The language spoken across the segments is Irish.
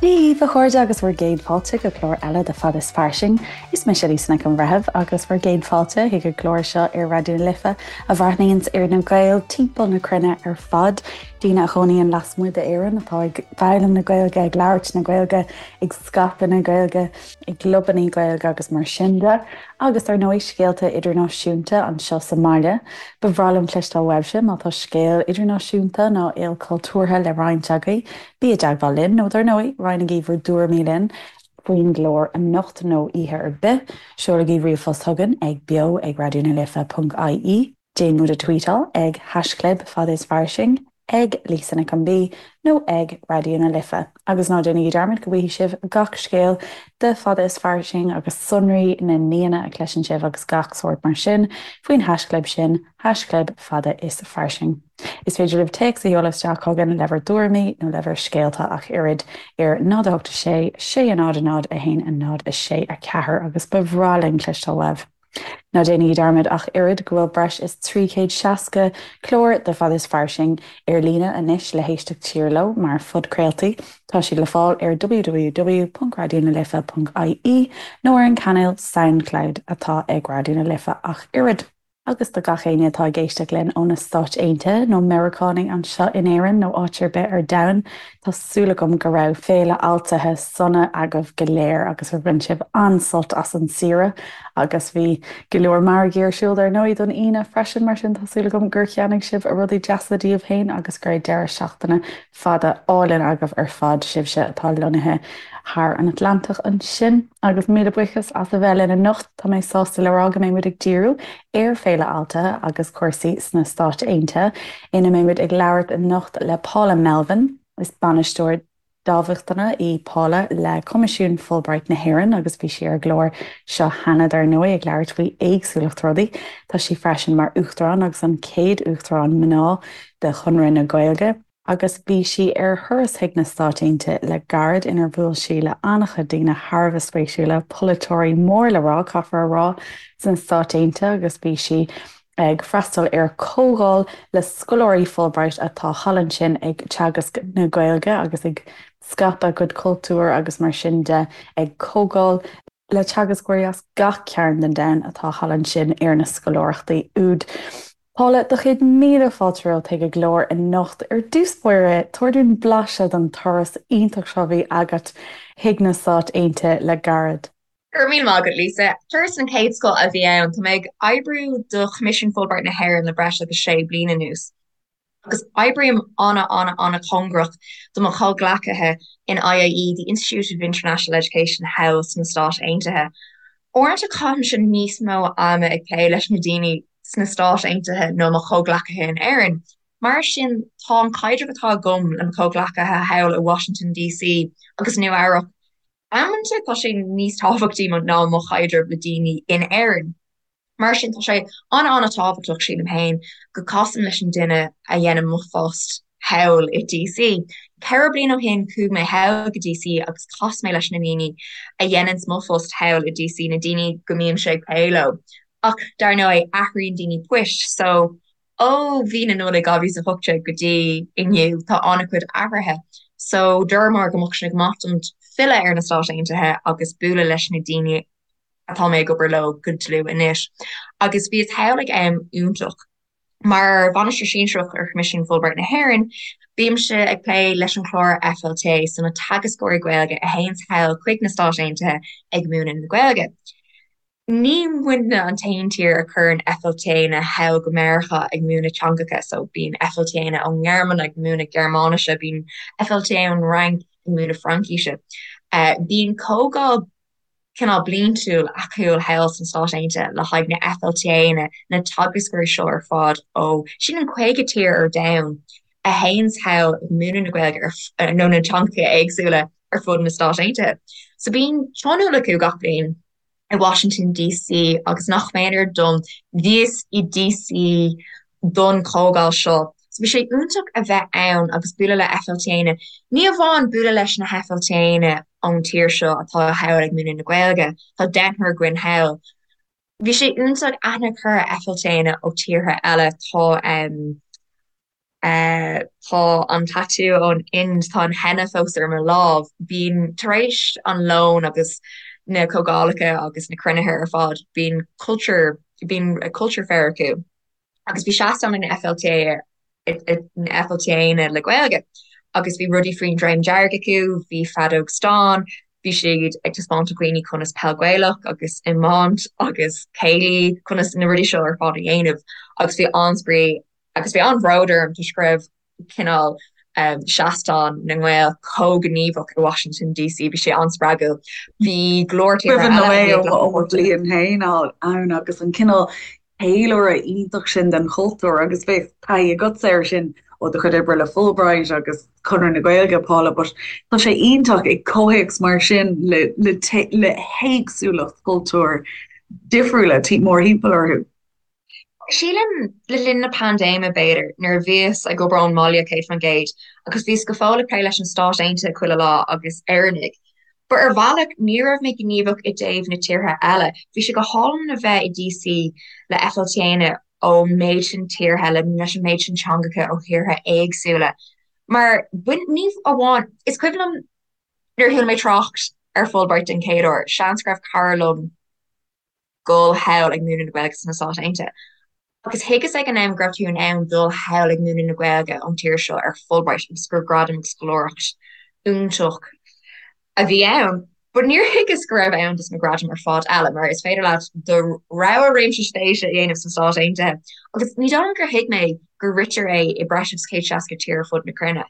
Dia dhaoibh a chairde agus bhur gcéad fáilte go clár eile de Fada is Fairsing. Is mise Lisa Nic an Bhreithimh agus bhur gcéad fáilte chuig an gclár seo ar Raidió na Life a bhreathnaíonns ar na Gaeil timpeall na cruinne ar fad, daoine a chónaíonn lasmuigh d'Éirinn atá ag foghlaim na Gaeilge, ag labhairt na Gaeilge, ag scaipeadh na Gaeilge, i gclubannaí Gaeilge agus mar sin de, agus ar ndóigh scéalta idirnáisiúnta anseo sa mbaile. Ba bhreá liom cloisteáil uaibhse má tá scéal idirnáisiúnta nó ilchultúrtha le roinnt agaibh. Bí i dteagmháil linn, nó dar ndóigh, roinnigí bhur dtuairimí linn faoin gclár anocht nó oíche ar bith. Seolaigí ríomhphost chugainn ag beo ag raidió na life ponc ie. Déan muid a tweetáil ag haischlib fada is fairsing, ag Lisa Nic an B nó ag Raidió na Life. Agus ná déanaigí dearmad go bhfaighidh sibh gach scéal de Fada is Fairsing agus sonraí na n-aíonna a chloiseann sibh agus gach sórt mar sin faoin haischlib sin, haischlib fada is fairsing. Is féidir libh téacs a sheoladh isteach chugainn le bhur dtuairimí nó le bhur scéalta ach oiread ar 0 8 6 6 0 0 1 0 6 4 agus ba bhreá linn cloisteáil uaibh. Ná déanaigí dearmad ach oiread go bhfuil breis is 360 clár de Fada is Fairsing ar líne anois le héisteacht siar leo mar phodchraoltaí. Tá siad le fáil ar www.raidionalife.ie nó ar an cainéal Soundcloud atá ag Raidió na Life ach oiread. Agus do gach éinne atá ag éisteacht linn ó na Stáit Aontaithe, nó Meiriceánaigh anseo in Éirinn nó áit ar bith ar domhan, tá súil agam go raibh Féile Altaithe sona agaibh go léir agus gur bhain sibh an-sult as an saoire. Agus bhí go leor margaí ar siúl dar ndóigh don Aoine freisin, mar sin tá súil agam gur cheannaigh sibh rudaí deasa daoibh féin agus go raibh deireadh seachtaine fada álainn agaibh ar fad, sibhse atá lonnaithe thar an Atlantach ansin. Agus míle buíochas as a bheith linn anocht. Tá mé sásta le rá go mbeidh muid ag díriú ar Féile Altaithe agus cúrsaí sna Stáit Aontaithe, ina mbeidh muid ag labhairt anocht le Paula Melvin. Is bainisteoir dámhachtana í Paula le Coimisiún Fulbright na hÉireann agus bhí sí ar an gclár seo cheana dar ndóigh ag labhairt faoi éagsúlacht rudaí. Tá sí freisin mar Uachtarán agus an chéad Uachtarán mná de Chonradh na Gaeilge. agus bhí sí ar thuras chuig na Stáit Aontaithe le gairid inar bhuail sí le an-chuid daoine thar a bheith spéisiúla, polaiteoirí mór le rá, caithfear a rá, sna Stáit Aontaithe agus bhí sí ag freastal ar chomhdháil le scoláirí Fulbright atá thall ansin ag teagasc na Gaeilge agus ag scaipeadh a gcuid cultúir agus mar sin de ag comhdháil le teagascóirí as gach cearn den domhan atá thall ansin ar na scoláireachtaí úd. Paula, do chéad míle fáilte romhat chuig an gclár anocht. Ar dtús báire, tabhair dúinn blaiseadh den turas iontach seo a bhí agat chuig na Stáit Aontaithe le gairid. Go raibh míle maith agat, Lisa. Turas den chéad scoth a bhí ann. Tá mé ag oibriú do Choimisiún Fulbright na hÉireann le breis agus sé bliana anuas. Agus oibrím an-an-an-chóngarach do mo chomhghleacaithe in IIE, the Institute of International Education, thall sna Stáit Aontaithe. Uaireanta caithimse níos mó ama ag plé leis na daoine sna Stáit Aontaithe ná mo chomhghleacaithe in Éirinn. Mar sin, tá an caidreamh atá agam le mo chomhghleacaithe thall i Washington DC agus Nua Eabhrac, amanta tá sé níos tábhachtaí ná mo chaidreamh le daoine in Éirinn. Mar sin, tá sé an-an-tábhachtach, sílim féin, go casaim leis an duine a dhéanann mo phost thall i DC. 4 bliana ó shin, chuaigh mé thall go DC agus chas mé leis na daoine a dhéananns mo phost thall i DC, na daoine go mbímse ag plé leo. Ach, dar ndóigh, athraíonn daoine poist, so ó mhí na Nollag 2018 go dtí inniu, tá an-chuid athruithe. So, dúramar go mbeadh sé go maith dom filleadh ar na Stáit Aontaithe agus bualadh leis na daoine atá mé ag obair leo go dlúth anois. Agus bhíos thall ag am iontach. Mar Bhainisteoir Sinsearach ar Choimisiún Fulbright na hÉireann, bímse ag plé leis an chlár FLTA, so na teagascóirí Gaeilge a théanns thall chuig na Stáit Aontaithe ag múineadh na Gaeilge. Ní muidne an t-aon tír a chuireann FLTAanna thall go Meiriceá ag múineadh teangacha, so bíonn FLTAanna ón nGearmáin ag múineadh Gearmáinise, bíonn FLTA ón Fhrainc ag múineadh Fraincise. Bíonn comhdháil cineál bliantúil acu thall sna Stáit Aontaithe le haghaidh na FLTAanna, na teagascóirí seo ar fad ó, sílim 50 tír ar domhan a théanns thall ag múineadh na Gaeilge ar, nó na teangacha éagsúla ar fud na Stáit Aontaithe. So bíonn tionól acu gach bliain i Washington DC agus nach méanar dom, bhíos i DC don chomhdháil seo. So bhí sé iontach a bheith ann agus bualadh le FLTAanna. Ní amháin bualadh leis na FLTAanna ón tír seo atá thall ag múineadh na Gaeilge, tá deichniúr againn thall. Bhí sé iontach aithne a chur ar FLTAanna ó tíortha eile. Tá. Tá an tattoo ón Ind, tá an henna fós ar mo lámh. Bíonn, tar éis an lón agus na comhdhálacha agus na cruinnithe ar fad, bíonn culture, bíonn culture fair acu. Agus bhí seastán ag na FLTA, na FLTAanna le Gaeilge agus bhí rudaí faoin Dream Dearg acu, bhí feadóg stáin, bhí siad ag taispeáint do dhaoine conas peil Gaelach agus iomáint agus céilí, conas na rudaí seo ar fad a dhéanamh agus bhí an-spraoi Agus bhí an-bhród orm toisc go raibh cineál seastán na nGael chomh gníomhach i Washington DC. Bhí sé an-spreagúil. Bhí go leor tíortha eile a bhí ag glacadh páirte. Bliain féin ann agus an cineál ceiliúradh iontach sin den chultúr agus bheadh taithí agatsa air sin ó do chuid oibre le Fulbright agus Conradh na Gaeilge, Paula, but tá sé iontach i gcomhthéacs mar sin le le le héagsúlacht cultúir difriúla mórthimpeall orthu. Sílim, le linn na paindéime, b'fhéidir, nuair a bhíos ag obair ón mbaile 100% agus bhíos go fóill ag plé leis an Stáit Aontaithe chuile lá agus Éireannaigh. But ar bhealach, ní raibh mé gníomhach i dtaobh na tíortha eile. Bhí sé go hálainn a bheith i DC le FLTAanna ón méid sin tíortha, le leis an méid sin teangacha ó thíortha éagsúla. Mar, bain, ní amháin, is cuimhin liom nuair a chuala mé trácht ar Fulbright den chéad uair, seans go raibh cara liom, dul thall ag múineadh na Gaeilge sna Stáit Aontaithe. Agus thuigeas ag an am go raibh tú in ann dul thall ag múineadh na Gaeilge ón tír seo ar Fulbright agus gur gradam agus scoláireacht iontach a bhí ann. But níor thuigeas go raibh ann dos na gradaim ar fad eile, mar is féidir leat do rogha réimse spéise a dhéanamh sna Stáit Aontaithe. Agus ní dóigh liom gur thuig mé gur ritear é i breis agus 160 tír ar fud na cruinne.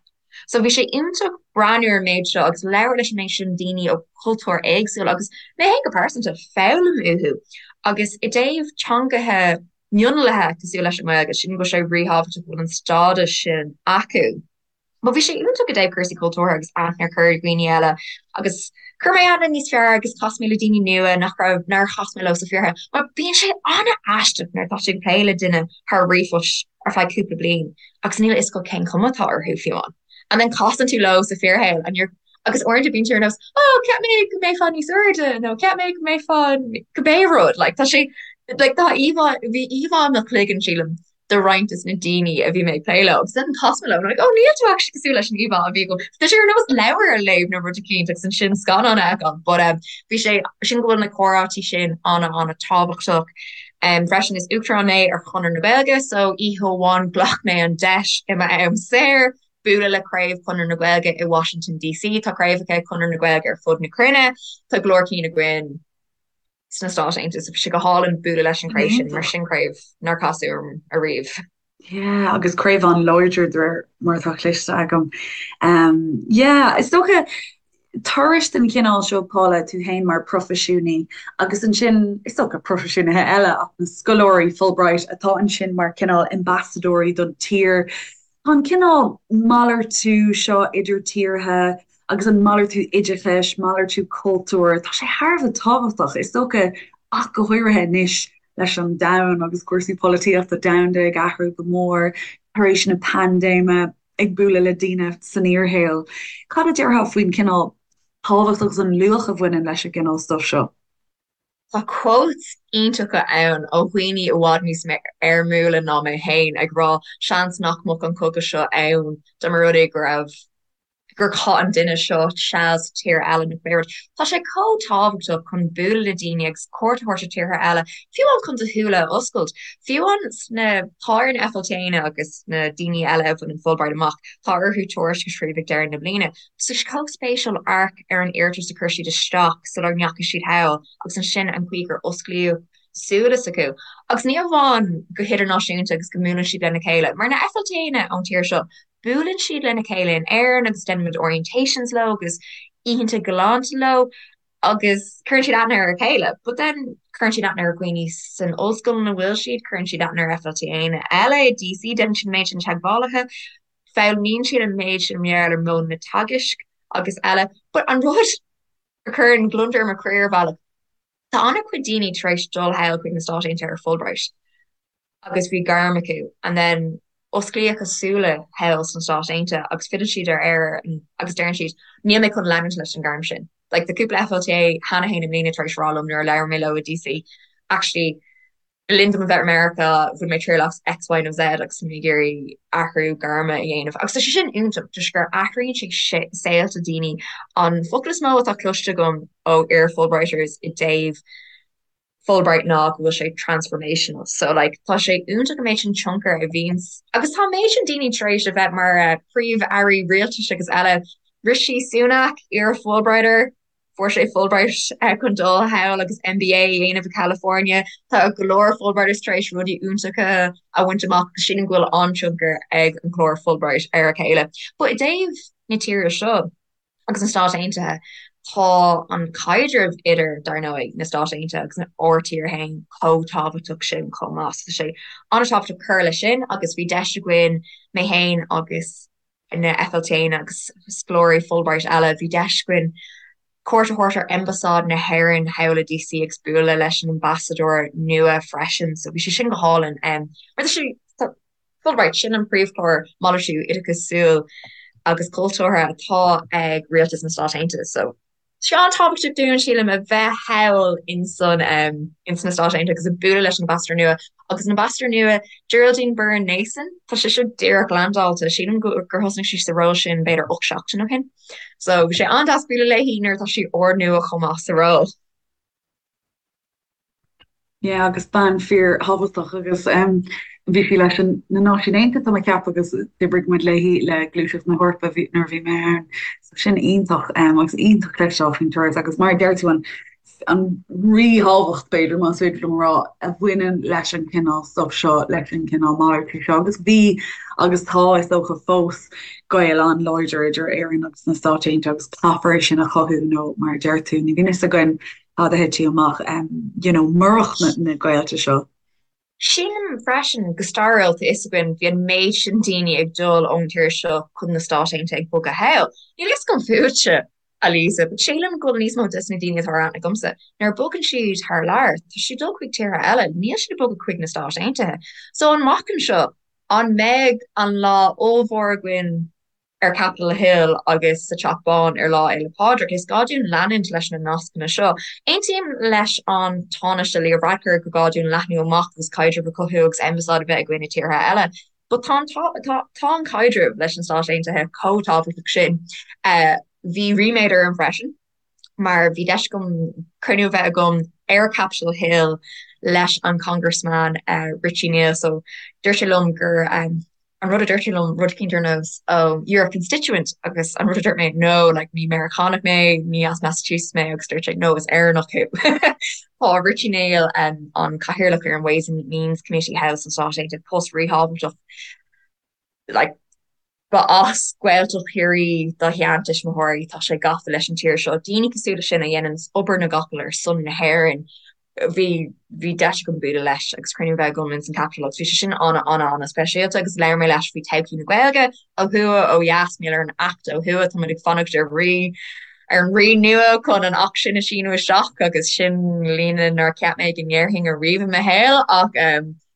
So bhí sé iontach breathnú ar an méid seo agus labhairt leis an méid sin daoine ó chultúir éagsúla agus mé féin go pearsanta, foghlaim uathu. Agus i dtaobh teangacha mionlaithe cosúil leis an nGaeilge, sílim go bhfuil sé ríthábhachtach go bhfuil an stádas sin acu. But bhí sé iontach i dtaobh cúrsaí cultúrtha agus aithne a chur ar dhaoine eile agus chuir mé aithne níos fearr agus chas mé le daoine nua nach raibh, nár chas mé leo sa fíorshaol. Mar bíonn sé an-aisteach nuair atá tú ag plé le duine thar ríomhphost ar feadh cúpla bliain agus níl a fhios agat cén chuma atá orthu fiú amháin. And then casann tú leo sa fíorshaol and you're agus uaireanta bíonn tú ar nós oh cheap mé go mbeifeá níos airde nó cheap mé go mbeifeá cibé rud like tá sé like tá íomhá bhí íomhá i mo chloigeann sílim de roinnt des na daoine a bhí mé ag plé leo agus then chas mé leo and I'm like oh níl tú actually cosúil leis an íomhá a bhí agam. Tá sé ar nós leabhar a léamh nó rud eicínt agus ansin scannán a fheiceáil but um bhí sé sin go bhfuil na comhráití sin an-an-tábhachtach. Freisin is Uachtarán mé ar Chonradh na Gaeilge so oíche amháin ghlac mé an deis i m'am saor bualadh le craobh Chonradh na Gaeilge i Washington DC. Tá craobhacha Chonradh na Gaeilge ar fud na cruinne, tá go leor cinn againn sna Stáit Aontaithe so bhí sé go hálainn bualadh leis an chraobh sin mar sin craobh nár casadh orm ariamh. Yeah, agus craobh an-láidir de réir mar atá cloiste agam. Um, yeah, is dócha turais den chineál seo, Paula, tú féin mar proifisiúnaí agus ansin is dócha proifisiúnaithe eile ach na scoláirí Fulbright atá ansin mar cineál ambasadóirí don tír. Tá an cineál malartú seo idir tíortha agus an malartú oideachais, malartú cultúir, tá sé thar a bheith tábhachtach, is dócha ach go háirithe anois leis an domhan agus cúrsaí polaitíochta domhanda ag athrú go mór tar éis na paindéime, ag bualadh le daoine san fhíorshaol. Cad a déarfá faoin chineál tábhacht agus an luach a bhaineann leis an gcineál stuif seo? Tá quotes iontacha ann ó dhaoine i bhfad níos éirmiúla ná mé féin ag rá seans nach mbeadh an cogadh seo ann dá mba rud é go raibh gur chaith an duine seo seal sa tír eile nó pé rud. Tá sé chomh tábhachtach chun bualadh le daoine agus cuairt a thabhairt ar tíortha eile, fiú amháin chun do shúile a oscailt. Fiú amháin sna, tá ar na FLTAanna agus na daoine eile a bhaineann Fulbright amach, tá orthu tuairisc a scríobh ag deireadh na bliana. Tá sé chomh spéisiúil amharc ar an iarratas a chuir siad isteach sula ndeachaigh siad thall agus ansin an chaoi gur osclaíodh súile s'acu. Agus ní amháin go hidirnáisiúnta agus go mbuaileann siad lena chéile, mar na FLTAanna ón tír seo, buaileann siad lena chéile in Éirinn agus déanaimid orientations leo agus oícheanta galánta leo agus cuireann siad aithne ar a chéile. But then cuireann siad aithne ar dhaoine san ollscoil ina bhfuil siad, cuireann siad aithne ar FLTAanna eile i DC, déanann siad an méid sin teagmhálaithe, foghlaimíonn siad an méid sin mar gheall ar mhodhanna teagaisc agus eile. But an rud a chuireann gliondar ar mo chroí ar bhealach, Tá an-chuid daoine tar éis dul thall chuig na Stáit Aontaithe ar Fulbright agus bhí gairm acu and then osclaíodh a súile thall sna Stáit Aontaithe agus filleann siad ar Éirinn agus deireann siad níl mé chun leanúint leis an gairm sin. Like tá cúpla FLTA cheana féin i mbliana tar éis rá liom nuair a labhair mé leo i DC actually. Le linn dom a bheith i Meiriceá, bhain mé triail as X, Y nó Z agus tá mé ag iarraidh athrú gairme a dhéanamh. Agus tá sé sin iontach toisc gur athraíonn sé saolta daoine. An focal is mó atá cloiste agam ó iar-Fulbrighters i dtaobh Fulbright ná go bhfuil sé transformational. So like tá sé iontach an méid sin tionchar a bhíonns agus tá an méid sin daoine tar éis a bheith mar príomh-airí rialtais agus eile. Rishi Sunak, iar-Fulbrighter, fuair sé Fulbright chun dul thall agus MBA a dhéanamh i California. Tá go leor Fulbrighters tar éis rudaí iontacha a bhaint amach agus sílim go bhfuil an-tionchar ag an chlár Fulbright ar a chéile. But i dtaobh na tíre seo agus na Stáit Aontaithe, tá an caidreamh idir, dar ndóigh, na Stáit Aontaithe agus ár tír féin chomh tábhachtach sin chomh maith. So tá sé an-tábhachtach cur leis sin agus bhí deis againn, mé féin agus na FLTanna agus scoláirí Fulbright eile, bhí deis againn cuairt a thabhairt ar Ambasáid na hÉireann thall i DC agus bualadh leis an ambasadóir nua freisin, so bhí sé sin go hálainn. Mar tá sé, Fulbright, sin an príomhchlár malartú oideachasúil agus cultúrtha atá ag Rialtas na Stát Aontaithe, so Tá sé an-tábhachtach dúinn, sílim, a bheith thall insan ins na Stáit Aontaithe agus ag bualadh leis an ambasadóir nua. Agus an ambasadóir nua, Geraldine Byrne Nason, tá sé seo díreach landáilte, sílim gur thosnaigh sí sa ról sin b'fhéidir 8 seachtain ó shin. So bhí sé an-deas bualadh léi nuair atá sí úrnua chomh maith sa ról. Yeah, agus bean fíor-thábhachtach agus bhí sí leis an na Náisiúin Aontaithe tá mé ag ceapadh agus d'oibrigh muid léi le Gluaiseacht na hEorpa nuair a bhí mé ann. So sin iontach agus iontach cloisteáil faoin turas agus mar a deir tú an an ríthábhacht b'fhéidir más féidir liom a rá a bhaineann leis an cineál stuff seo leis an cineál malartú seo agus bhí agus tá is dócha fós gaol an-láidir idir Éirinn agus na Stáit Aontaithe agus caithfear é sin a chothú nó mar a deir tú ní bhíonn fhios againn cad a thitfeadh amach, you know, murach na gaolta seo. Sílim freisin, go stairiúil, tá fhios againn, bhí an méid sin daoine ag dul ón tír seo chun na Stáit Aontaithe ag bogadh thall. Níl fhios agam fútsa, a Lisa, but sílim go bhfuil níos mó des na daoine atá ar aithne agamsa, nuair a bogann siad thar lear, tá siad ag dul chuig tíortha eile, níl siad ag bogadh chuig na Stáit Aontaithe. So amach anseo, an mbeidh an lá ollmhór againn ar Capitol Hill agus sa Teach Bán ar Lá Fhéile Pádraig. Is gá dúinn leanúint leis na nascanna seo. Aontaím leis an Tánaiste Leo Varadkar gur gá dúinn leathnú amach agus caidreamh a chothú agus ambasáid a bheith againn i tíortha eile. But tá an tá tá an caidreamh leis na Stáit Aontaithe chomh tábhachtach sin. Bhí ríméad orm freisin mar bhí deis agam cruinniú a bheith agam ar Capitol Hill leis an Congressman Richie Neal. So dúirt sé liom gur an rud a dúirt sé liom rud eicínt ar nós oh you're a constituent agus an rud a dúirt mé no like ní Meiriceánach mé, ní as Massachusetts mé agus dúirt sé no is Éireannach thú. Tá Richie Neal um, an cathaoirleach ar an Ways and Means Committee thall sna Stáit Aontaithe post ríthábhachtach like Ba as Gaeltacht Chiarraí dá sheantuismitheoirí, tá sé gafa leis an tír seo. Daoine cosúil leis sin a dhéananns obair na gcapall ar son na hÉireann. Bhí bhí deis agam bualadh leis agus cruinniú a bheith agam ins an Capitol agus bhí sé sin ana ana ana speisialta agus labhair mé leis faoi todhchaí na Gaeilge ó thuaidh, ó dheas, mar gheall ar an Acht ó thuaidh, tá muid ag fanacht ar rí ar an rí nua chun an Acht sin a síniú isteach agus sin líne nár cheap mé go ndéarfainn ariamh i mo shaol ach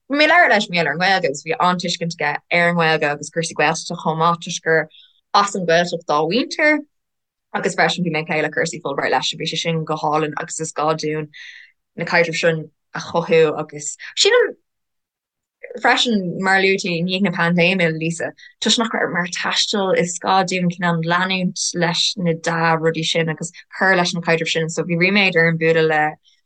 Bhí mé ag labhairt leis mar gheall ar an nGaeilge agus bhí an-tuiscint aige ar an nGaeilge agus cúrsaí Gaeltachta chomh maith toisc gur as an Ghaeltacht dá mhuintir agus freisin bhí mé ag plé le cúrsaí Fulbright leis bhí sé sin go hálainn agus is gá dúinn na caidrimh sin a chothú agus sílim freisin mar a luaigh tú i ndiaidh na paindéime Lisa toisc nach raibh muid ag taisteal is gá dúinn cineál leanúint leis na dea-rudaí sin agus cur leis na caidrimh sin so bhí ríméad orm bualadh le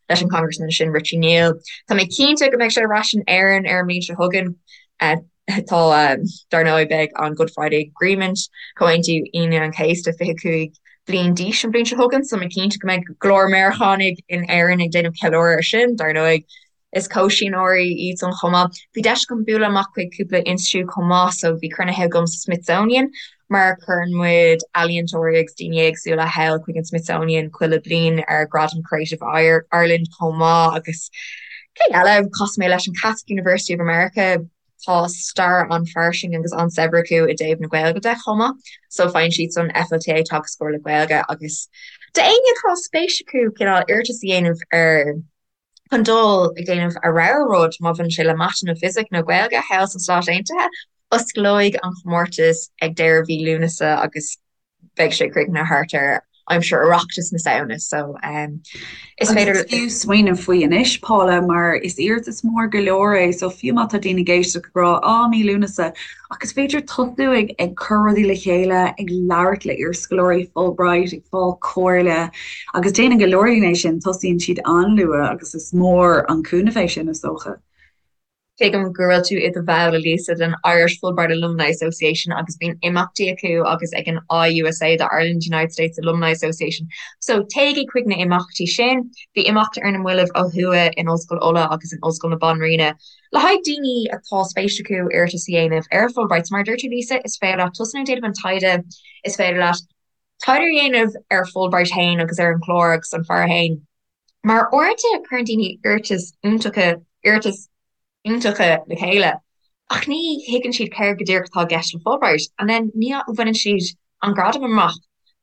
leis an Congressman sin Richie Neal. Tá mé cinnte go mbeidh sé ar ais in Éirinn ar an mbliain seo chugainn. Tá, dar ndóigh, beidh an Good Friday Agreement, Comhaontú Aoine an Chéasta, 25 bliain d'aois an bhliain seo chugainn, so mé cinnte go mbeidh go leor Meiriceánaigh in Éirinn ag déanamh ceiliúradh ar sin, dar ndóigh. Is comhsíneoirí iadsan chomh maith. Bhí deis agam bualadh amach chuig cúpla institiúid chomh maith, so bhí cruinnithe agam sa Smithsonian mar cuireann muid ealaíontóirí agus daoine éagsúla thall chuig an Smithsonian chuile bliain ar Gradam Creative Ireland chomh maith agus cé eile, chas mé leis an Catholic University of America, tá stair an-fhairsing agus an-saibhir acu i dtaobh na Gaeilge de chomh maith, so faigheann siadsan FLTA teagascóir le Gaeilge agus d'éinne atá spéis acu cineál iarratas a dhéanamh ar chun dul ag déanamh a rogha rud, má bhaineann sé le Mata nó Fisic nó Gaeilge, thall sna Stáit Aontaithe. Osclóidh an chomórtas ag deireadh mhí Lúnasa agus beidh sé críochnaithe thart ar. aimsir Oireachtas na Samhna so is féidir. Agus is fiú smaoineamh faoi anois, Paula, mar is iarratas mór go leor é so fiú má tá daoine ag éisteacht ag rá 'á, mí Lúnasa', ach is féidir tosú ag ag cur rudaí le chéile, ag labhairt le iarscoláirí Fulbright, ag fáil comhairle agus déanann go leor daoine é sin, tosaíonn siad an-luath agus is mór an cúnamh é sin is dócha. Tuigim go bhfuil tú i do bhall, a Lisa, den Irish Fulbright Alumni Association agus bíonn imeachtaí acu agus ag an IUSA, the Ireland United States Alumni Association. So téigí chuig na imeachtaí sin. Bhí imeacht ar na mallaibh ó thuaidh in Ollscoil Uladh agus in Ollscoil na Banríona le haghaidh daoine atá spéis acu iarratas a dhéanamh ar Fulbright. So mar a dúirt tú, Lisa, is féidir leat tosnú ag déanamh an taighde, is féidir leat taighde a dhéanamh ar Fulbright féin agus ar an chlár agus an fear féin. Mar uaireanta cuireann daoine iarratais iontacha, iarratais iontacha le chéile ach ní thuigeann siad céard go díreach atá i gceist le Fulbright and then ní bhaineann siad an gradam amach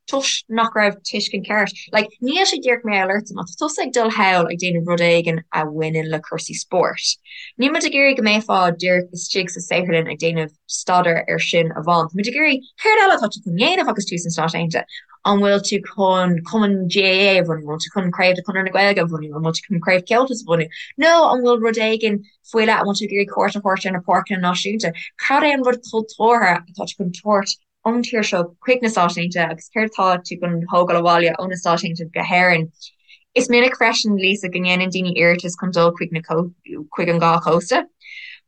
toisc nach raibh tuiscint ceart. Like, níl sé díreach mar gheall ortsa, má tá tusa ag dul thall ag déanamh rud éigin a bhaineann le cúrsaí spóirt, níl muid ag iarraidh go mbeifeá díreach istigh sa saotharlann ag déanamh staidéar ar sin amháin. Tá muid ag iarraidh céard eile atá tú chun dhéanamh agus tú sna Stáit Aontaithe? An bhfuil tú chun cumann GAA a bhunú? An bhfuil tú chun craobh de Chonradh na Gaeilge a bhunú? An bhfuil tú chun craobh Comhaltas a bhunú? Nó an bhfuil rud éigin faoi leith, an bhfuil tú ag iarraidh cuairt a thabhairt ar na páirceanna náisiúnta? Cad é an rud cultúrtha atá tú chun tabhairt ón tír seo chuig na Stáit Aontaithe agus céard atá tú chun thógáil abhaile ó na Stáit Aontaithe go hÉirinn? Is minic freisin, Lisa, go ndéanann daoine iarratas chun dul chuig na chuig an dhá chósta.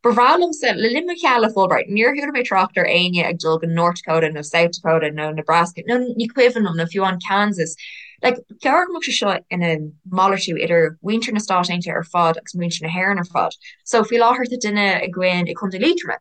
Ba bhreá liomsa, le linn mo sheal le Fulbright, níor chuala mé trácht ar éinne ag dul go North Dakota nó South Dakota nó Nebraska nó ní cuimhin liom, nó fiú amháin Kansas. Like, ba cheart go mbeadh sé seo ina malartú idir mhuintir na Stát Aontaithe ar fad agus muintir na hÉireann ar fad. So, faoi láthair tá duine againn i Contae Liatroma.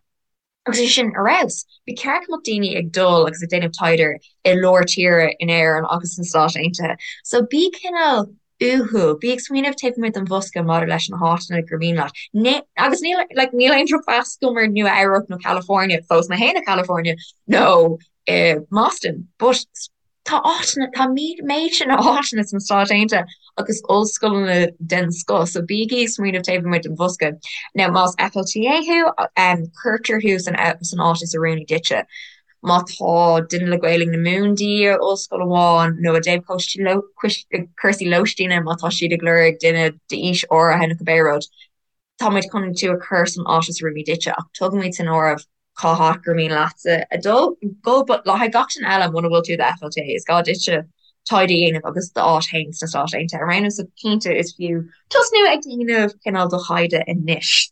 Agus é sin ar fheabhas. Ba cheart go mbeadh daoine ag dul agus ag déanamh taighde i lár tíre in Éirinn agus sna Stáit Aontaithe. So bí cineál uathúil, bí ag smaoineamh taobh amuigh den bhosca maidir leis na háiteanna gur mian leat. Agus níl, like, níl aon drochmheas agam ar Nua Eabhrac nó California, phós mé féin i California, nó i mBoston, but Tá áiteanna, tá méid sin áiteanna sna Stáit Aontaithe agus ollscoileanna den scoth, so bígí ag smaoineamh taobh amuigh den bhosca. Now, más FLTA thú, cuirtear thú san san áit is oiriúnaí duitse. Má tá duine le Gaelainn na Mumhan de dhíth ar ollscoil amháin nó i dtaobh cúrsaí lóistíne, má tá siad ag lorg duine d'aois áirithe nó cibé rud, tá muid chun tú a chur san áit is oiriúnaí duitse ach tugaimid san áireamh cá háit gur mian leatsa a dul, go, but le haghaidh gach duine eile, muna bhfuil tú i do FLTA, is gá duitse taighde a dhéanamh agus d'áit féin sna Stáit Aontaithe a roghnú, so cinnte is fiú tosnú ag déanamh cineál do thaighde anois.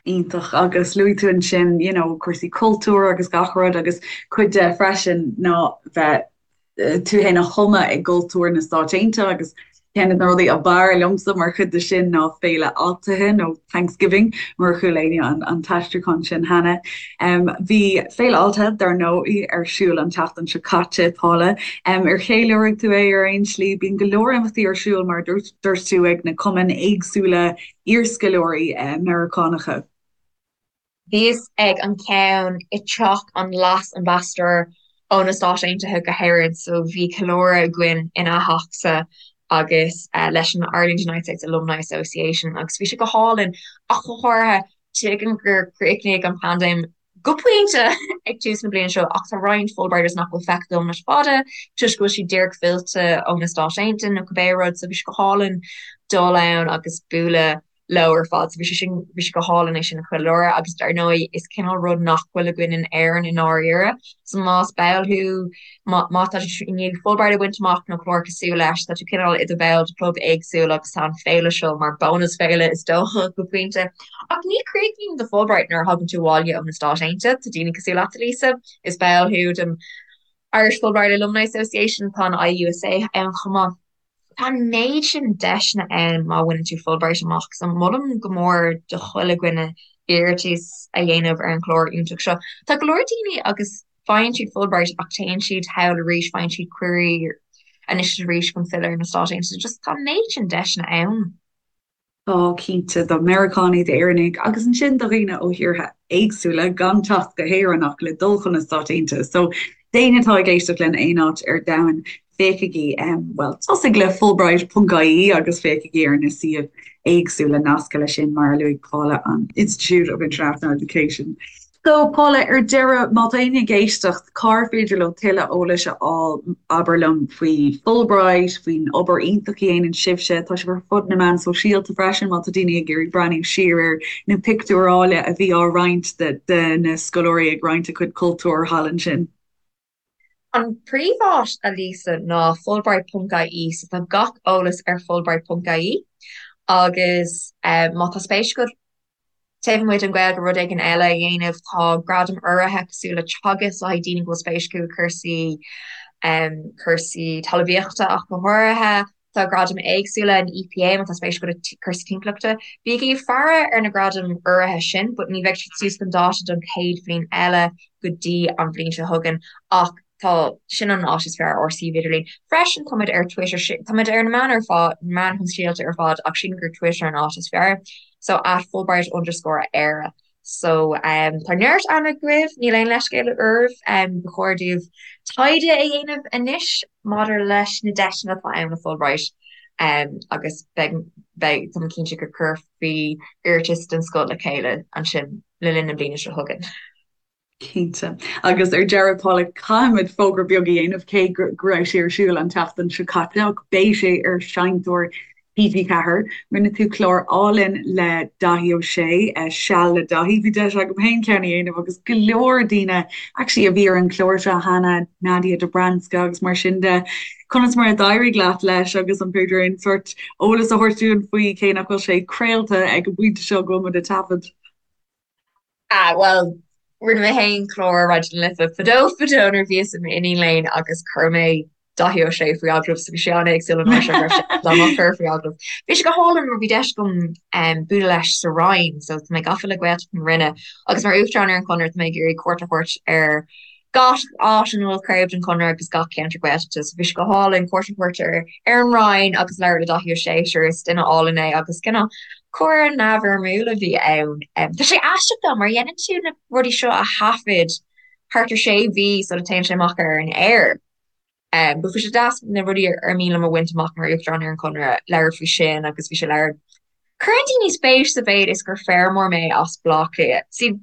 Iontach. Agus luaigh tú ansin, you know, cúrsaí cultúir agus gach rud agus cuid de freisin ná bheith tú féin a thumadh i gcultúr na Stáit Aontaithe agus ceann de na rudaí ab fhearr liomsa mar chuid de sin ná Féile Altaithe nó Thanksgiving murar chuala éinne an t-aistriúchán sin cheana. Bhí Féile Altaithe, dar ndóigh, ar siúl an tseachtain seo caite, Paula. Ar cheiliúraigh tú é ar aon slí? Bíonn go leor imeachtaí ar siúl, mar a dúirt tú, ag na cumainn éagsúla iarscoláirí Meiriceánacha. Bhíos ag an ceann i dteach an Leas-Ambasadóir ó na Stáit Aontaithe go hÉirinn so bhí ceiliúradh againn ina theachsa agus leis an Ireland United States Alumni Association agus bhí sé go hálainn ach go háirithe tuigim gur chríochnaigh an paindéim go pointe ag tús na bliana seo ach tá roinnt Fulbrighters nach bhfuil feicthe agam le fada toisc go bhfuil siad díreach fillte ó na Stáit Aontaithe nó cibé rud so bhí sé go hálainn dul ann agus bualadh leo ar fad. So bhí sé sin, bhí sé go hálainn é sin a cheiliúradh agus dar ndóigh is cineál rud nach bhfuil againn in Éirinn i ndáiríre. So más ball thú, má, má tá tú i ndiaidh Fulbright a bhaint amach nó clár cosúil leis, tá tú cineál i do bhall de chlub éagsúil agus tá an féile seo mar bónas féile is dócha go pointe. Ach ní chríochnaíonn do Fulbright nuair a thagann tú abhaile ó na Stáit Aontaithe. Tá daoine cosúil leat, Lisa, is ball thú den Irish Fulbright Alumni Association, tá an IUSA ann chomh maith. Tá an méid sin deiseanna ann má bhaineann tú Fulbright amach, so molaim go mór do chuile dhuine iarratas a dhéanamh ar an chlár iontach seo. Tá go leor daoine agus faigheann siad Fulbright ach téann siad thall arís, faigheann siad cuirí anois is arís chun filleadh ar na Stáit Aontaithe. Just tá an méid sin deiseanna ann. Tá, cinnte, do Mheiriceánaigh, d'Éireannaigh agus ansin do dhaoine ó thíortha éagsúla gan teacht go hÉirinn ach le dul chun na Stáit Aontaithe. So, d'éinne atá ag éisteacht linn aon áit ar domhan, féachaigí, bhuel, tosaigh le Fulbright.ie agus féachaigí ar na suímh éagsúla nasctha leis sin, mar a luaigh Paula, an Institute of International Education. So, Paula, ar deireadh, má tá éinne ag éisteacht, cár féidir leo tuilleadh eolais a fháil, abair liom, faoi Fulbright, faoin obair iontach a dhéanann sibhse, tá sibh ar fud na meán sóisialta freisin, má tá daoine ag iarraidh breathnú siar ar na pictiúir áille a bhí á roinnt de na scoláirí ag roinnt a cuid cultúir thall ansin. An príomháit, a Lisa, ná Fulbright.ie, so tá gach eolas ar Fulbright.ie agus má tá spéis agat taobh amuigh den Ghaeilge rud éigin eile a dhéanamh, tá gradaim urraithe cosúil le Teagasc le haghaidh daoine go bhfuil spéis acu i cúrsaí cúrsaí talmhaíochta ach go háirithe. Tá gradaim éagsúla an EPA má tá spéis agat i cúrsaí timpeallachta. Bígí ag faire ar na gradaim urraithe sin, but ní bheidh siad suas chun dáta don chéad bhliain eile go dtí an bhliain seo chugainn ach tá, sin an áit is fearr ár suíomh idirlín. Freisin táimid ar Twitter, táimid ar na meáin ar fad, meáin shóisialta ar fad ach sílim gur Twitter an áit is fearr. So at Fulbright underscore Éire. So tá neart ama agaibh, níl aon leithscéal oraibh, ba chóir daoibh taighde a dhéanamh anois maidir leis na deiseanna atá ann le Fulbright agus beidh, beidh, tá mé cinnte go cuirfí iarratas den scoth le chéile ansin le linn na bliana seo chugainn. Cinnte. Agus ar deireadh, Paula, caithfimid fógra beag a dhéanamh, cé go raibh sé ar siúl an tseachtain seo caite, ach beidh sé ar Seinnteoir TG4. Rinne tú clár álainn le Daithí Ó Sé, Seal le Daithí. Bhí deis agam féin ceann a dhéanamh agus go leor daoine actually a bhí ar an chlár seo cheana, Nadia Dobranska agus mar sin de. Conas mar a d'éirigh leat leis agus an féidir aon sórt eolas a thabhairt dúinn faoi, cé nach bhfuil sé craolta ag an bpointe seo go bhfuil muid ag taifead? Ah, bhuel, rinne mé féin clár ar Raidió na Life fadó fadó nuair a bhíos i m'iníon léinn agus chuir mé Daithí Ó Sé faoi agallamh so bhí sé an-éagsúil an uair seo go raibh sé dá mo chur faoi agallamh. Bhí sé go hálainn mar bhí deis agam um, bualadh leis sa Rinn, so tá mé gafa le Gaeltacht na Rinne agus mar Uachtarán ar an Chonradh tá mé ag iarraidh cuairt a thabhairt ar gach áit ina bhfuil craobh den Chonradh agus gach ceantar Gaeltachta so bhí sé go hálainn cuairt a thabhairt ar ar an Rinn agus labhairt le Daithí Ó Sé sure is duine álainn é agus cineál comhrá neamhfhoirmiúil a bhí ann. Tá sé aisteach though mar dhéanann tú na rudaí seo a thaifead thart ar sé mhí sula téann sé amach ar an aer. But bhí sé deas na rudaí ar mian liom a bhaint amach mar Uachtarán ar an Chonradh, labhairt faoi sin agus bhí sé labhairt. Cuireann daoine spéis sa mhéid is gur feirmeoir mé as Baile Átha Cliath. See,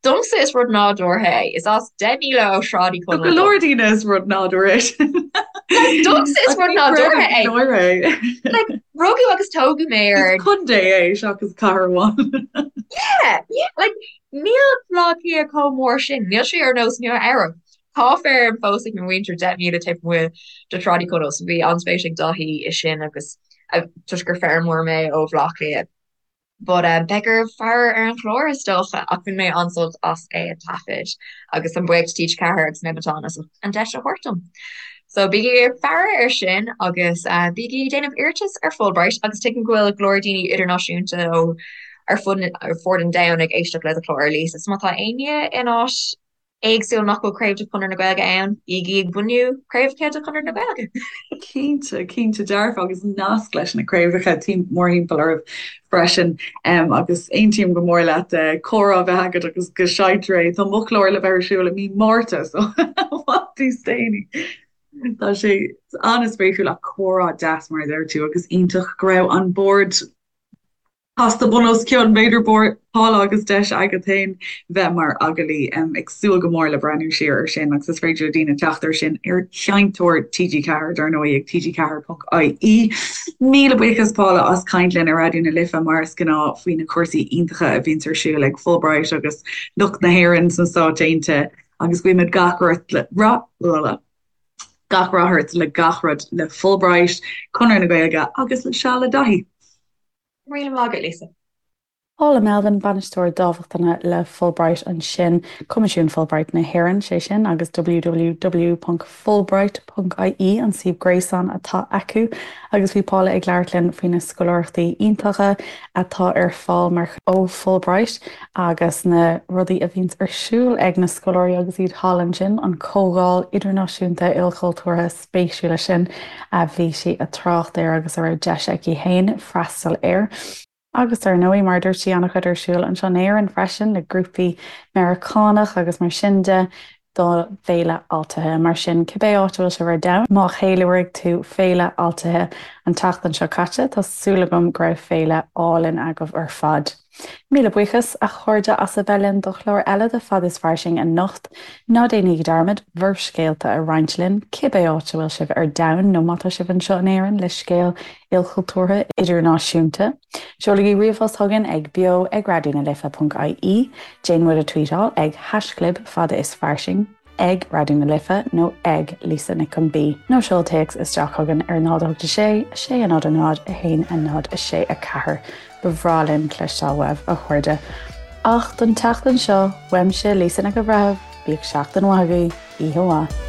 domsa is rud nádúrtha é. Is as 10 míle ó Shráid Uí Do go leor daoine is rud nádúrtha é sin. Like, domsa is rud nádúrtha é. Like, rugadh agus tógadh mé ar. Is contae é seachas cathair amháin. Yeah, yeah, like, níl Baile Átha Cliath chomh mór sin. Níl sé ar nós Nua Eabhrac. Tá feirm fós ag mo mhuintir 10 míle taobh amuigh de Shráid Uí Chonaill so bhí an-spéis ag Daithí i sin agus toisc gur feirmeoir mé ó Bhaile Átha Cliath. But um, beidh oraibh faire ar an chlár is dócha ach bhain mé an-sult as é a taifead agus táim buíoch do TG4 agus Nemeton as an deis a thabhairt dom. So bígí ag faire ar sin agus uh, bígí ag déanamh iarratas ar Fulbright agus tuigim go bhfuil go leor daoine idirnáisiúnta ó ar fud ar fud an domhain ag éisteacht le do chlár Lisa. So má tá éinne in áit éagsúil nach bhfuil craobh de Chonradh na Gaeilge ann, bígí ag bunú craobhacha de Chonradh na Gaeilge. Cinnte, cinnte dearfa agus nasc leis na craobhacha mórthimpeall oraibh freisin agus aontaím go mór leat comhrá a bheith agat agus go seinntear é. Tá mo chlár le bheith ar siúl i mí Márta so i bhfad níos déanaí. Tá sé an-spéisiúil ach comhrá deas mar a deir tú agus iontach go raibh an bord Casta bun os cionn, b'fhéidir, Paula agus deis agat féin bheith mar agallaí. Ag súil go mór le breathnú siar ar sin agus is féidir le daoine teacht ar sin ar Sheinnteoir TG4, dar ndóigh, ag tg4.ie. Míle buíochas, Paula, as caint linn ar Raidió na Life, mar is gnáth, faoi na cúrsaí iontacha a bhíonns ar siúl ag Fulbright agus lucht na hÉireann sna Stáit Aontaithe agus guímid gach rath gach rath ort le gach rud le Fulbright, Conradh na Gaeilge agus le Seal le Daithí. Míle maith agat, Lisa. Paula Melvin, Bainisteoir Dámhachtana le Fulbright ansin, Coimisiún Fulbright na hÉireann, sé sin, agus www.fulbright.ie an suíomh gréasáin atá acu. Agus bhí Paula ag labhairt linn faoi na scoláireachtaí iontacha atá ar fáil mar ó Fulbright agus na rudaí a bhíonns ar siúl ag na scoláirí agus iad thall ansin, an comhdháil idirnáisiúnta ilchultúrtha spéisiúla sin a bhí sí ag trácht air agus a raibh deis aici féin freastal air. Agus ar ndóigh, mar a dúirt sí, an-chuid ar siúl anseo in Éirinn freisin le grúpaí Meiriceánach agus mar sin de do Féile Altaithe. Mar sin, cibé áit a bhfuil sibh ar domhan, má cheiliúraigh tú Féile Altaithe an tseachtain seo caite, tá súil agam go raibh féile álainn agaibh ar fad. Míle buíochas, a chairde, as a bheith linn do chlár eile de Fad is Fairsing anocht. Ná déanaigí dearmad bhur scéalta a roinnt linn, cibé áit a bhfuil sibh ar domhan nó má tá sibh anseo in Éirinn le scéal ilchultúrtha idirnáisiúnta. Seolaigí ríomhphost chugainn ag beo ag raidionalife.ie, déan muid a tweetáil ag haischlib fada is fairsing. ag Raidió na Life nó ag Lisa Nic an B nó seol téacs isteach chugainn ar 0 8 6 6 0 0 1 0 6 4. Ba bhreá linn cloisteáil uaibh, a chairde. Ach don tseachtain seo, uaimse Lisa Nic an Bhreithimh, bíodh seachtain mhaith agaibh, oíche mhaith.